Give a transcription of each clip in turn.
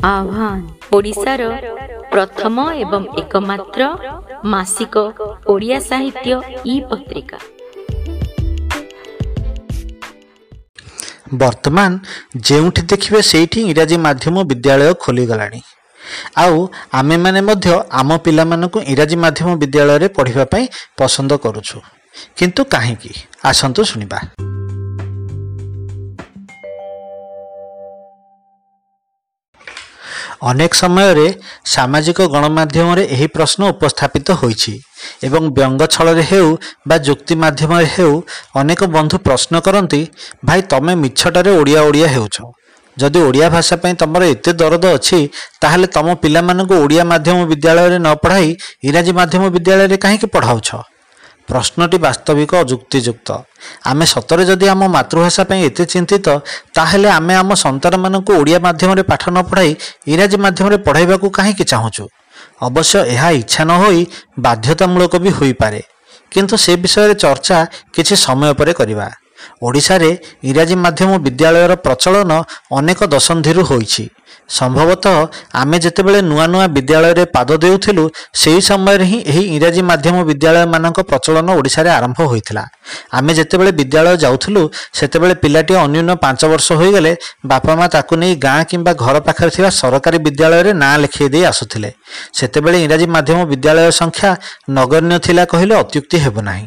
ଆହ୍ୱାନ ଓଡ଼ିଶାର ପ୍ରଥମ ଏବଂ ଏକମାତ୍ର ମାସିକ ଓଡ଼ିଆ ସାହିତ୍ୟ ଇ ପତ୍ରିକା। ବର୍ତ୍ତମାନ ଯେଉଁଠି ଦେଖିବେ ସେଇଠି ଇଂରାଜୀ ମାଧ୍ୟମ ବିଦ୍ୟାଳୟ ଖୋଲିଗଲାଣି। ଆଉ ଆମେମାନେ ମଧ୍ୟ ଆମ ପିଲାମାନଙ୍କୁ ଇଂରାଜୀ ମାଧ୍ୟମ ବିଦ୍ୟାଳୟରେ ପଢ଼ିବା ପାଇଁ ପସନ୍ଦ କରୁଛୁ। କିନ୍ତୁ କାହିଁକି? ଆସନ୍ତୁ ଶୁଣିବା। ଅନେକ ସମୟରେ ସାମାଜିକ ଗଣମାଧ୍ୟମରେ ଏହି ପ୍ରଶ୍ନ ଉପସ୍ଥାପିତ ହୋଇଛି ଏବଂ ବ୍ୟଙ୍ଗ ଛଳରେ ହେଉ ବା ଯୁକ୍ତି ମାଧ୍ୟମରେ ହେଉ ଅନେକ ବନ୍ଧୁ ପ୍ରଶ୍ନ କରନ୍ତି, ଭାଇ ତମେ ମିଛଟାରେ ଓଡ଼ିଆ ଓଡ଼ିଆ ହେଉଛ, ଯଦି ଓଡ଼ିଆ ଭାଷା ପାଇଁ ତମର ଏତେ ଦରଦ ଅଛି ତାହେଲେ ତମ ପିଲାମାନଙ୍କୁ ଓଡ଼ିଆ ମାଧ୍ୟମ ବିଦ୍ୟାଳୟରେ ନ ପଢ଼ାଇ ଇଂରାଜୀ ମାଧ୍ୟମ ବିଦ୍ୟାଳୟରେ କାହିଁକି ପଢ଼ାଉଛ? ପ୍ରଶ୍ନଟି ବାସ୍ତବିକ ଯୁକ୍ତିଯୁକ୍ତ। ଆମେ ସତରେ ଯଦି ଆମ ମାତୃଭାଷା ପାଇଁ ଏତେ ଚିନ୍ତିତ ତାହେଲେ ଆମେ ଆମ ସନ୍ତାନମାନଙ୍କୁ ଓଡ଼ିଆ ମାଧ୍ୟମରେ ପାଠ ନ ପଢ଼ାଇ ଇଂରାଜୀ ମାଧ୍ୟମରେ ପଢ଼ାଇବାକୁ କାହିଁକି ଚାହୁଁଛୁ? ଅବଶ୍ୟ ଏହା ଇଚ୍ଛା ନ ହୋଇ ବାଧ୍ୟତାମୂଳକ ବି ହୋଇପାରେ, କିନ୍ତୁ ସେ ବିଷୟରେ ଚର୍ଚ୍ଚା କିଛି ସମୟ ପରେ କରିବା। ଓଡ଼ିଶାରେ ଇଂରାଜୀ ମାଧ୍ୟମ ବିଦ୍ୟାଳୟର ପ୍ରଚଳନ ଅନେକ ଦଶନ୍ଧିରୁ ହୋଇଛି। ସମ୍ଭବତଃ ଆମେ ଯେତେବେଳେ ନୂଆ ନୂଆ ବିଦ୍ୟାଳୟରେ ପାଦ ଦେଉଥିଲୁ ସେହି ସମୟରେ ହିଁ ଏହି ଇଂରାଜୀ ମାଧ୍ୟମ ବିଦ୍ୟାଳୟମାନଙ୍କ ପ୍ରଚଳନ ଓଡ଼ିଶାରେ ଆରମ୍ଭ ହୋଇଥିଲା। ଆମେ ଯେତେବେଳେ ବିଦ୍ୟାଳୟ ଯାଉଥିଲୁ ସେତେବେଳେ ପିଲାଟି ଅନ୍ୟୁନ 5 ବର୍ଷ ହୋଇଗଲେ ବାପା ମା ତାକୁ ନେଇ ଗାଁ କିମ୍ବା ଘର ପାଖରେ ଥିବା ସରକାରୀ ବିଦ୍ୟାଳୟରେ ନାଁ ଲେଖାଇ ଦେଇ ଆସୁଥିଲେ। ସେତେବେଳେ ଇଂରାଜୀ ମାଧ୍ୟମ ବିଦ୍ୟାଳୟ ସଂଖ୍ୟା ନଗଣ୍ୟ ଥିଲା କହିଲେ ଅତ୍ୟୁକ୍ତି ହେବ ନାହିଁ।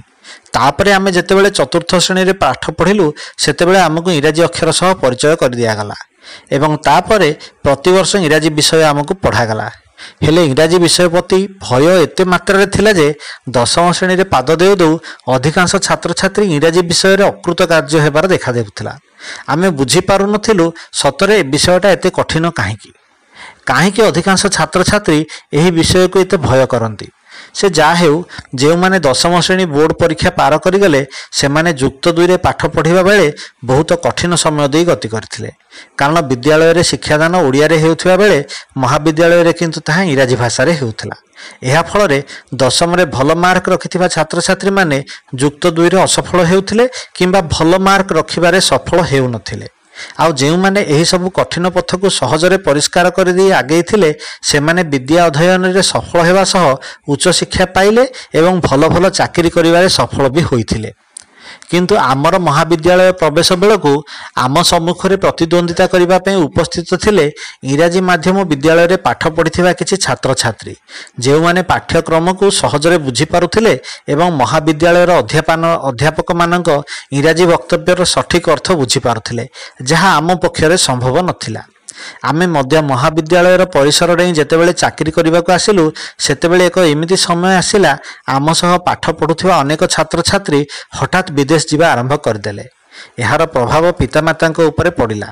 ତାପରେ ଆମେ ଯେତେବେଳେ ଚତୁର୍ଥ ଶ୍ରେଣୀରେ ପାଠ ପଢ଼ିଲୁ ସେତେବେଳେ ଆମକୁ ଇଂରାଜୀ ଅକ୍ଷର ସହ ପରିଚୟ କରିଦିଆଗଲା ଏବଂ ତାପରେ ପ୍ରତିବର୍ଷ ଇଂରାଜୀ ବିଷୟ ଆମକୁ ପଢ଼ାଗଲା। ହେଲେ ଇଂରାଜୀ ବିଷୟ ପ୍ରତି ଭୟ ଏତେ ମାତ୍ରାରେ ଥିଲା ଯେ ଦଶମ ଶ୍ରେଣୀରେ ପାଦ ଦେଉ ଦେଉ ଅଧିକାଂଶ ଛାତ୍ରଛାତ୍ରୀ ଇଂରାଜୀ ବିଷୟରେ ଅକୃତକାର୍ଯ୍ୟ ହେବାର ଦେଖାଦେଉଥିଲା। ଆମେ ବୁଝିପାରୁନଥିଲୁ ସତରେ ଏ ବିଷୟଟା ଏତେ କଠିନ କାହିଁକି, କାହିଁକି ଅଧିକାଂଶ ଛାତ୍ରଛାତ୍ରୀ ଏହି ବିଷୟକୁ ଏତେ ଭୟ କରନ୍ତି। ସେ ଯାହା ହେଉ, ଯେଉଁମାନେ ଦଶମ ଶ୍ରେଣୀ ବୋର୍ଡ଼ ପରୀକ୍ଷା ପାର କରିଗଲେ ସେମାନେ ଯୁକ୍ତ ଦୁଇରେ ପାଠ ପଢ଼ିବା ବେଳେ ବହୁତ କଠିନ ସମୟ ଦେଇ ଗତି କରିଥିଲେ। କାରଣ ବିଦ୍ୟାଳୟରେ ଶିକ୍ଷାଦାନ ଓଡ଼ିଆରେ ହେଉଥିବା ବେଳେ ମହାବିଦ୍ୟାଳୟରେ କିନ୍ତୁ ତାହା ଇଂରାଜୀ ଭାଷାରେ ହେଉଥିଲା। ଏହା ଫଳରେ ଦଶମରେ ଭଲ ମାର୍କ ରଖିଥିବା ଛାତ୍ରଛାତ୍ରୀମାନେ ଯୁକ୍ତ ଦୁଇରେ ଅସଫଳ ହେଉଥିଲେ କିମ୍ବା ଭଲ ମାର୍କ ରଖିବାରେ ସଫଳ ହେଉନଥିଲେ। ଆଉ ଯେଉଁମାନେ ଏହିସବୁ କଠିନ ପଥକୁ ସହଜରେ ପରିଷ୍କାର କରିଦେଇ ଆଗେଇଥିଲେ ସେମାନେ ବିଦ୍ୟା ଅଧ୍ୟୟନରେ ସଫଳ ହେବା ସହ ଉଚ୍ଚଶିକ୍ଷା ପାଇଲେ ଏବଂ ଭଲ ଭଲ ଚାକିରି କରିବାରେ ସଫଳ ବି ହୋଇଥିଲେ। କିନ୍ତୁ ଆମର ମହାବିଦ୍ୟାଳୟ ପ୍ରବେଶ ବେଳକୁ ଆମ ସମ୍ମୁଖରେ ପ୍ରତିଦ୍ୱନ୍ଦ୍ୱିତା କରିବା ପାଇଁ ଉପସ୍ଥିତ ଥିଲେ ଇଂରାଜୀ ମାଧ୍ୟମ ବିଦ୍ୟାଳୟରେ ପାଠ ପଢ଼ିଥିବା କିଛି ଛାତ୍ରଛାତ୍ରୀ, ଯେଉଁମାନେ ପାଠ୍ୟକ୍ରମକୁ ସହଜରେ ବୁଝିପାରୁଥିଲେ ଏବଂ ମହାବିଦ୍ୟାଳୟର ଅଧ୍ୟାପକମାନଙ୍କ ଇଂରାଜୀ ବକ୍ତବ୍ୟର ସଠିକ୍ ଅର୍ଥ ବୁଝିପାରୁଥିଲେ, ଯାହା ଆମ ପକ୍ଷରେ ସମ୍ଭବ ନଥିଲା। ଆମେ ମଧ୍ୟ ମହାବିଦ୍ୟାଳୟର ପରିସର ଡେଇଁ ଯେତେବେଳେ ଚାକିରି କରିବାକୁ ଆସିଲୁ ସେତେବେଳେ ଏକ ଏମିତି ସମୟ ଆସିଲା ଆମ ସହ ପାଠ ପଢ଼ୁଥିବା ଅନେକ ଛାତ୍ରଛାତ୍ରୀ ହଠାତ୍ ବିଦେଶ ଯିବା ଆରମ୍ଭ କରିଦେଲେ। ଏହାର ପ୍ରଭାବ ପିତାମାତାଙ୍କ ଉପରେ ପଡ଼ିଲା।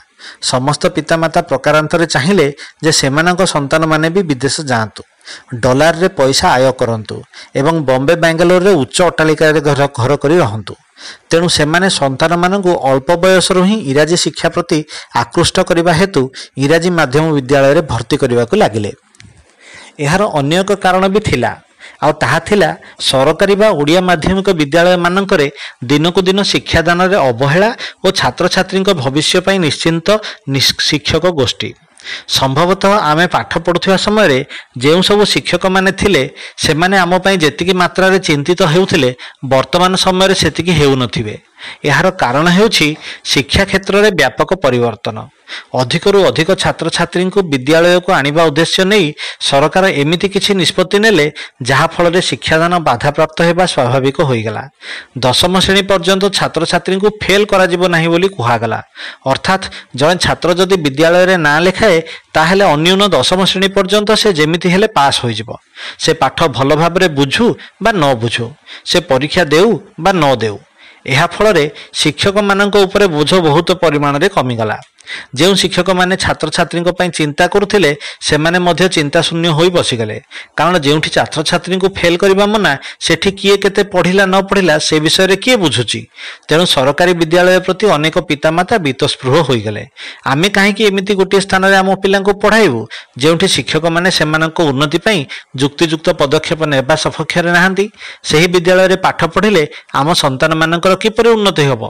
ସମସ୍ତ ପିତାମାତା ପ୍ରକାରାନ୍ତରେ ଚାହିଁଲେ ଯେ ସେମାନଙ୍କ ସନ୍ତାନମାନେ ବି ବିଦେଶ ଯାଆନ୍ତୁ, ଡଲାରରେ ପଇସା ଆୟ କରନ୍ତୁ ଏବଂ ବମ୍ବେ ବାଙ୍ଗାଲୋରରେ ଉଚ୍ଚ ଅଟ୍ଟାଳିକାରେ ଘର କରି ରହନ୍ତୁ। ତେଣୁ ସେମାନେ ସନ୍ତାନମାନଙ୍କୁ ଅଳ୍ପ ବୟସରୁ ହିଁ ଇଂରାଜୀ ଶିକ୍ଷା ପ୍ରତି ଆକୃଷ୍ଟ କରିବା ହେତୁ ଇଂରାଜୀ ମାଧ୍ୟମ ବିଦ୍ୟାଳୟରେ ଭର୍ତ୍ତି କରିବାକୁ ଲାଗିଲେ। ଏହାର ଅନ୍ୟ ଏକ କାରଣ ବି ଥିଲା, ଆଉ ତାହା ଥିଲା ସରକାରୀ ବା ଓଡ଼ିଆ ମାଧ୍ୟମିକ ବିଦ୍ୟାଳୟମାନଙ୍କରେ ଦିନକୁ ଦିନ ଶିକ୍ଷାଦାନରେ ଅବହେଳା ଓ ଛାତ୍ରଛାତ୍ରୀଙ୍କ ଭବିଷ୍ୟ ପାଇଁ ନିଶ୍ଚିନ୍ତ ଶିକ୍ଷକ ଗୋଷ୍ଠୀ। ସମ୍ଭବତଃ ଆମେ ପାଠ ପଢ଼ୁଥିବା ସମୟରେ ଯେଉଁ ସବୁ ଶିକ୍ଷକମାନେ ଥିଲେ ସେମାନେ ଆମ ପାଇଁ ଯେତିକି ମାତ୍ରାରେ ଚିନ୍ତିତ ହେଉଥିଲେ ବର୍ତ୍ତମାନ ସମୟରେ ସେତିକି ହେଉନଥିବେ। ଏହାର କାରଣ ହେଉଛି ଶିକ୍ଷା କ୍ଷେତ୍ରରେ ବ୍ୟାପକ ପରିବର୍ତ୍ତନ। ଅଧିକରୁ ଅଧିକ ଛାତ୍ରଛାତ୍ରୀଙ୍କୁ ବିଦ୍ୟାଳୟକୁ ଆଣିବା ଉଦ୍ଦେଶ୍ୟ ନେଇ ସରକାର ଏମିତି କିଛି ନିଷ୍ପତ୍ତି ନେଲେ ଯାହାଫଳରେ ଶିକ୍ଷାଦାନ ବାଧାପ୍ରାପ୍ତ ହେବା ସ୍ୱାଭାବିକ ହୋଇଗଲା। ଦଶମ ଶ୍ରେଣୀ ପର୍ଯ୍ୟନ୍ତ ଛାତ୍ରଛାତ୍ରୀଙ୍କୁ ଫେଲ୍ କରାଯିବ ନାହିଁ ବୋଲି କୁହାଗଲା। ଅର୍ଥାତ୍ ଜଣେ ଛାତ୍ର ଯଦି ବିଦ୍ୟାଳୟରେ ନାଁ ଲେଖାଏ ତାହେଲେ ଅନ୍ୟୁନ ଦଶମ ଶ୍ରେଣୀ ପର୍ଯ୍ୟନ୍ତ ସେ ଯେମିତି ହେଲେ ପାସ୍ ହୋଇଯିବ। ସେ ପାଠ ଭଲ ଭାବରେ ବୁଝୁ ବା ନ ବୁଝୁ, ସେ ପରୀକ୍ଷା ଦେଉ ବା ନ ଦେଉ। ଏହା ଫଳରେ ଶିକ୍ଷକମାନଙ୍କ ଉପରେ ବୋଝ ବହୁତ ପରିମାଣରେ କମିଗଲା। ଯେଉଁ ଶିକ୍ଷକମାନେ ଛାତ୍ରଛାତ୍ରୀଙ୍କ ପାଇଁ ଚିନ୍ତା କରୁଥିଲେ ସେମାନେ ମଧ୍ୟ ଚିନ୍ତାଶୂନ୍ୟ ହୋଇ ବସିଗଲେ। କାରଣ ଯେଉଁଠି ଛାତ୍ରଛାତ୍ରୀଙ୍କୁ ଫେଲ୍ କରିବା ମନା, ସେଠି କିଏ କେତେ ପଢ଼ିଲା ନ ପଢ଼ିଲା ସେ ବିଷୟରେ କିଏ ବୁଝୁଛି? ତେଣୁ ସରକାରୀ ବିଦ୍ୟାଳୟ ପ୍ରତି ଅନେକ ପିତାମାତା ବୀତସ୍ପୃହ ହୋଇଗଲେ। ଆମେ କାହିଁକି ଏମିତି ଗୋଟିଏ ସ୍ଥାନରେ ଆମ ପିଲାଙ୍କୁ ପଢ଼ାଇବୁ ଯେଉଁଠି ଶିକ୍ଷକମାନେ ସେମାନଙ୍କ ଉନ୍ନତି ପାଇଁ ଯୁକ୍ତିଯୁକ୍ତ ପଦକ୍ଷେପ ନେବା ସପକ୍ଷରେ ନାହାନ୍ତି? ସେହି ବିଦ୍ୟାଳୟରେ ପାଠ ପଢ଼ିଲେ ଆମ ସନ୍ତାନମାନଙ୍କର କିପରି ଉନ୍ନତି ହେବ?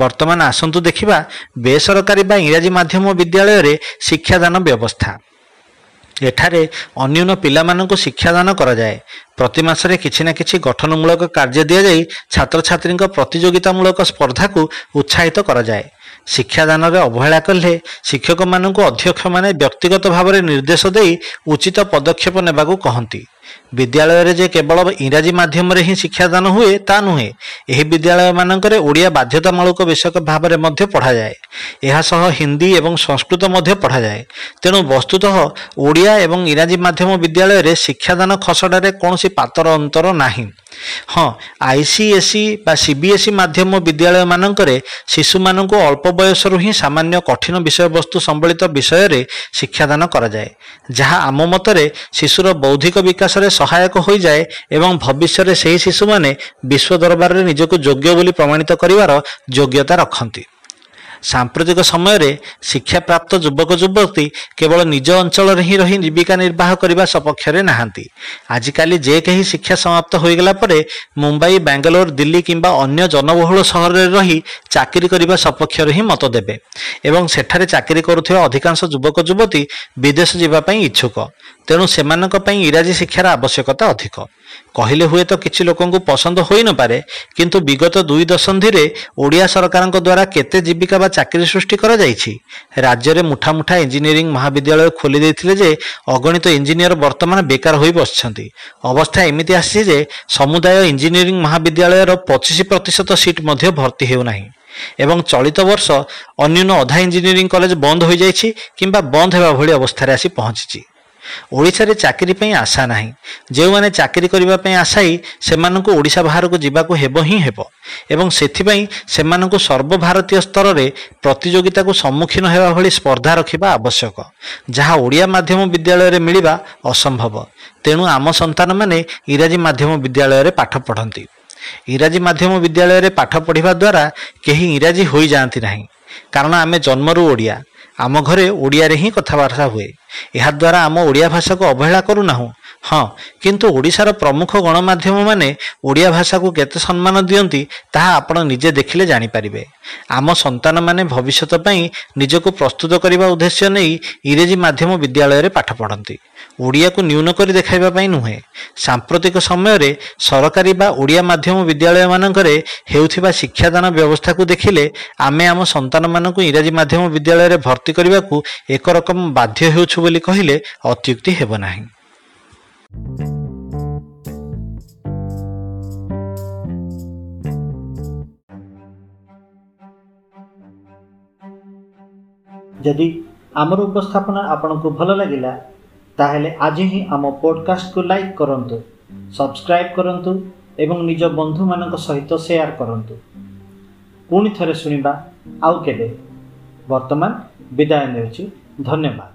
ବର୍ତ୍ତମାନ ଆସନ୍ତୁ ଦେଖିବା ବେସରକାରୀ ବା ଇଂରାଜୀ ମାଧ୍ୟମ ବିଦ୍ୟାଳୟରେ ଶିକ୍ଷାଦାନ ବ୍ୟବସ୍ଥା। ଏଠାରେ ଅନ୍ୟୁନ ପିଲାମାନଙ୍କୁ ଶିକ୍ଷାଦାନ କରାଯାଏ। ପ୍ରତି ମାସରେ କିଛି ନା କିଛି ଗଠନମୂଳକ କାର୍ଯ୍ୟ ଦିଆଯାଇ ଛାତ୍ରଛାତ୍ରୀଙ୍କ ପ୍ରତିଯୋଗିତାମୂଳକ ସ୍ପର୍ଦ୍ଧାକୁ ଉତ୍ସାହିତ କରାଯାଏ। ଶିକ୍ଷାଦାନରେ ଅବହେଳା କଲେ ଶିକ୍ଷକମାନଙ୍କୁ ଅଧ୍ୟକ୍ଷମାନେ ବ୍ୟକ୍ତିଗତ ଭାବରେ ନିର୍ଦ୍ଦେଶ ଦେଇ ଉଚିତ ପଦକ୍ଷେପ ନେବାକୁ କହନ୍ତି। ବିଦ୍ୟାଳୟରେ ଯେ କେବଳ ଇଂରାଜୀ ମାଧ୍ୟମରେ ହିଁ ଶିକ୍ଷାଦାନ ହୁଏ ତା ନୁହେଁ, ଏହି ବିଦ୍ୟାଳୟମାନଙ୍କରେ ଓଡ଼ିଆ ବାଧ୍ୟତାମୂଳକ ବିଷୟ ଭାବରେ ମଧ୍ୟ ପଢ଼ାଯାଏ। ଏହା ସହ ହିନ୍ଦୀ ଏବଂ ସଂସ୍କୃତ ମଧ୍ୟ ପଢ଼ାଯାଏ। ତେଣୁ ବସ୍ତୁତଃ ଓଡ଼ିଆ ଏବଂ ଇଂରାଜୀ ମାଧ୍ୟମ ବିଦ୍ୟାଳୟରେ ଶିକ୍ଷାଦାନ ଖସଡ଼ାରେ କୌଣସି ପାତର ଅନ୍ତର ନାହିଁ। ହଁ, ICSE ବା CBSE ମାଧ୍ୟମ ବିଦ୍ୟାଳୟମାନଙ୍କରେ ଶିଶୁମାନଙ୍କୁ ଅଳ୍ପ ବୟସରୁ ହିଁ ସାମାନ୍ୟ କଠିନ ବିଷୟବସ୍ତୁ ସମ୍ବଳିତ ବିଷୟରେ ଶିକ୍ଷାଦାନ କରାଯାଏ, ଯାହା ଆମ ମତରେ ଶିଶୁର ବୌଦ୍ଧିକ ବିକାଶରେ ସହାୟକ ହୋଇଯାଏ ଏବଂ ଭବିଷ୍ୟରେ ସେହି ଶିଶୁମାନେ ବିଶ୍ୱ ଦରବାରରେ ନିଜକୁ ଯୋଗ୍ୟ ବୋଲି ପ୍ରମାଣିତ କରିବାର ଯୋଗ୍ୟତା ରଖନ୍ତି। ସାମ୍ପ୍ରତିକ ସମୟରେ ଶିକ୍ଷାପ୍ରାପ୍ତ ଯୁବକ ଯୁବତୀ କେବଳ ନିଜ ଅଞ୍ଚଳରେ ହିଁ ରହି ଜୀବିକା ନିର୍ବାହ କରିବା ସପକ୍ଷରେ ନାହାନ୍ତି। ଆଜିକାଲି ଯେ କେହି ଶିକ୍ଷା ସମାପ୍ତ ହୋଇଗଲା ପରେ ମୁମ୍ବାଇ, ବାଙ୍ଗାଲୋର, ଦିଲ୍ଲୀ କିମ୍ବା ଅନ୍ୟ ଜନବହୁଳ ସହରରେ ରହି ଚାକିରି କରିବା ସପକ୍ଷରେ ହିଁ ମତ ଦେବେ ଏବଂ ସେଠାରେ ଚାକିରି କରୁଥିବା ଅଧିକାଂଶ ଯୁବକ ଯୁବତୀ ବିଦେଶ ଯିବା ପାଇଁ ଇଚ୍ଛୁକ। ତେଣୁ ସେମାନଙ୍କ ପାଇଁ ଇଂରାଜୀ ଶିକ୍ଷାର ଆବଶ୍ୟକତା ଅଧିକ। କହିଲେ ହୁଏତ କିଛି ଲୋକଙ୍କୁ ପସନ୍ଦ ହୋଇନପାରେ, କିନ୍ତୁ ବିଗତ 2 ଦଶନ୍ଧିରେ ଓଡ଼ିଆ ସରକାରଙ୍କ ଦ୍ୱାରା କେତେ ଜୀବିକା ବା ଚାକିରି ସୃଷ୍ଟି କରାଯାଇଛି? ରାଜ୍ୟରେ ମୁଠା ମୁଠା ଇଞ୍ଜିନିୟରିଂ ମହାବିଦ୍ୟାଳୟ ଖୋଲି ଦେଇଥିଲେ ଯେ ଅଗଣିତ ଇଞ୍ଜିନିୟର ବର୍ତ୍ତମାନ ବେକାର ହୋଇ ବସିଛନ୍ତି। ଅବସ୍ଥା ଏମିତି ଆସିଛି ଯେ ସମୁଦାୟ ଇଞ୍ଜିନିୟରିଂ ମହାବିଦ୍ୟାଳୟର 25% ସିଟ୍ ମଧ୍ୟ ଭର୍ତ୍ତି ହେଉନାହିଁ ଏବଂ ଚଳିତ ବର୍ଷ ଅନ୍ୟୁନ ଅଧା ଇଞ୍ଜିନିୟରିଂ କଲେଜ ବନ୍ଦ ହୋଇଯାଇଛି କିମ୍ବା ବନ୍ଦ ହେବା ଭଳି ଅବସ୍ଥାରେ ଆସି ପହଞ୍ଚିଛି। ଓଡ଼ିଶାରେ ଚାକିରି ପାଇଁ ଆଶା ନାହିଁ। ଯେଉଁମାନେ ଚାକିରି କରିବା ପାଇଁ ଆଶାୟୀ ସେମାନଙ୍କୁ ଓଡ଼ିଶା ବାହାରକୁ ଯିବାକୁ ହେବ ହିଁ ହେବ ଏବଂ ସେଥିପାଇଁ ସେମାନଙ୍କୁ ସର୍ବଭାରତୀୟ ସ୍ତରରେ ପ୍ରତିଯୋଗିତାକୁ ସମ୍ମୁଖୀନ ହେବା ଭଳି ସ୍ପର୍ଦ୍ଧା ରଖିବା ଆବଶ୍ୟକ, ଯାହା ଓଡ଼ିଆ ମାଧ୍ୟମ ବିଦ୍ୟାଳୟରେ ମିଳିବା ଅସମ୍ଭବ। ତେଣୁ ଆମ ସନ୍ତାନମାନେ ଇଂରାଜୀ ମାଧ୍ୟମ ବିଦ୍ୟାଳୟରେ ପାଠ ପଢ଼ନ୍ତି। ଇଂରାଜୀ ମାଧ୍ୟମ ବିଦ୍ୟାଳୟରେ ପାଠ ପଢ଼ିବା ଦ୍ୱାରା କେହି ଇଂରାଜୀ ହୋଇଯାଆନ୍ତି ନାହିଁ, କାରଣ ଆମେ ଜନ୍ମରୁ ଓଡ଼ିଆ। ଆମ ଘରେ ଓଡ଼ିଆରେ ହିଁ କଥାବାର୍ତ୍ତା ହୁଏ। ଏହାଦ୍ୱାରା ଆମ ଓଡ଼ିଆ ଭାଷାକୁ ଅବହେଳା କରୁନାହୁଁ। ହଁ, କିନ୍ତୁ ଓଡ଼ିଶାର ପ୍ରମୁଖ ଗଣମାଧ୍ୟମମାନେ ଓଡ଼ିଆ ଭାଷାକୁ କେତେ ସମ୍ମାନ ଦିଅନ୍ତି ତାହା ଆପଣ ନିଜେ ଦେଖିଲେ ଜାଣିପାରିବେ। ଆମ ସନ୍ତାନମାନେ ଭବିଷ୍ୟତ ପାଇଁ ନିଜକୁ ପ୍ରସ୍ତୁତ କରିବା ଉଦ୍ଦେଶ୍ୟ ନେଇ ଇଂରାଜୀ ମାଧ୍ୟମ ବିଦ୍ୟାଳୟରେ ପାଠ ପଢ଼ନ୍ତି, ଓଡ଼ିଆକୁ ନ୍ୟୁନ କରି ଦେଖାଇବା ପାଇଁ ନୁହେଁ। ସାମ୍ପ୍ରତିକ ସମୟରେ ସରକାରୀ ବା ଓଡ଼ିଆ ମାଧ୍ୟମ ବିଦ୍ୟାଳୟମାନଙ୍କରେ ହେଉଥିବା ଶିକ୍ଷାଦାନ ବ୍ୟବସ୍ଥାକୁ ଦେଖିଲେ ଆମେ ଆମ ସନ୍ତାନମାନଙ୍କୁ ଇଂରାଜୀ ମାଧ୍ୟମ ବିଦ୍ୟାଳୟରେ ଭର୍ତ୍ତି କରିବାକୁ ଏକରକମ ବାଧ୍ୟ ହେଉଛୁ ବୋଲି କହିଲେ ଅତ୍ୟୁକ୍ତି ହେବ ନାହିଁ। ଯଦି ଆମର ଉପସ୍ଥାପନା ଆପଣଙ୍କୁ ଭଲ ଲାଗିଲା, ତାହେଲେ ଆଜି ହିଁ ଆମ ପଡ଼କାଷ୍ଟକୁ ଲାଇକ୍ କରନ୍ତୁ, ସବସ୍କ୍ରାଇବ୍ କରନ୍ତୁ ଏବଂ ନିଜ ବନ୍ଧୁମାନଙ୍କ ସହିତ ସେୟାର କରନ୍ତୁ। ପୁଣି ଥରେ ଶୁଣିବା ଆଉ କେବେ। ବର୍ତ୍ତମାନ ବିଦାୟ ନେଉଛି। ଧନ୍ୟବାଦ।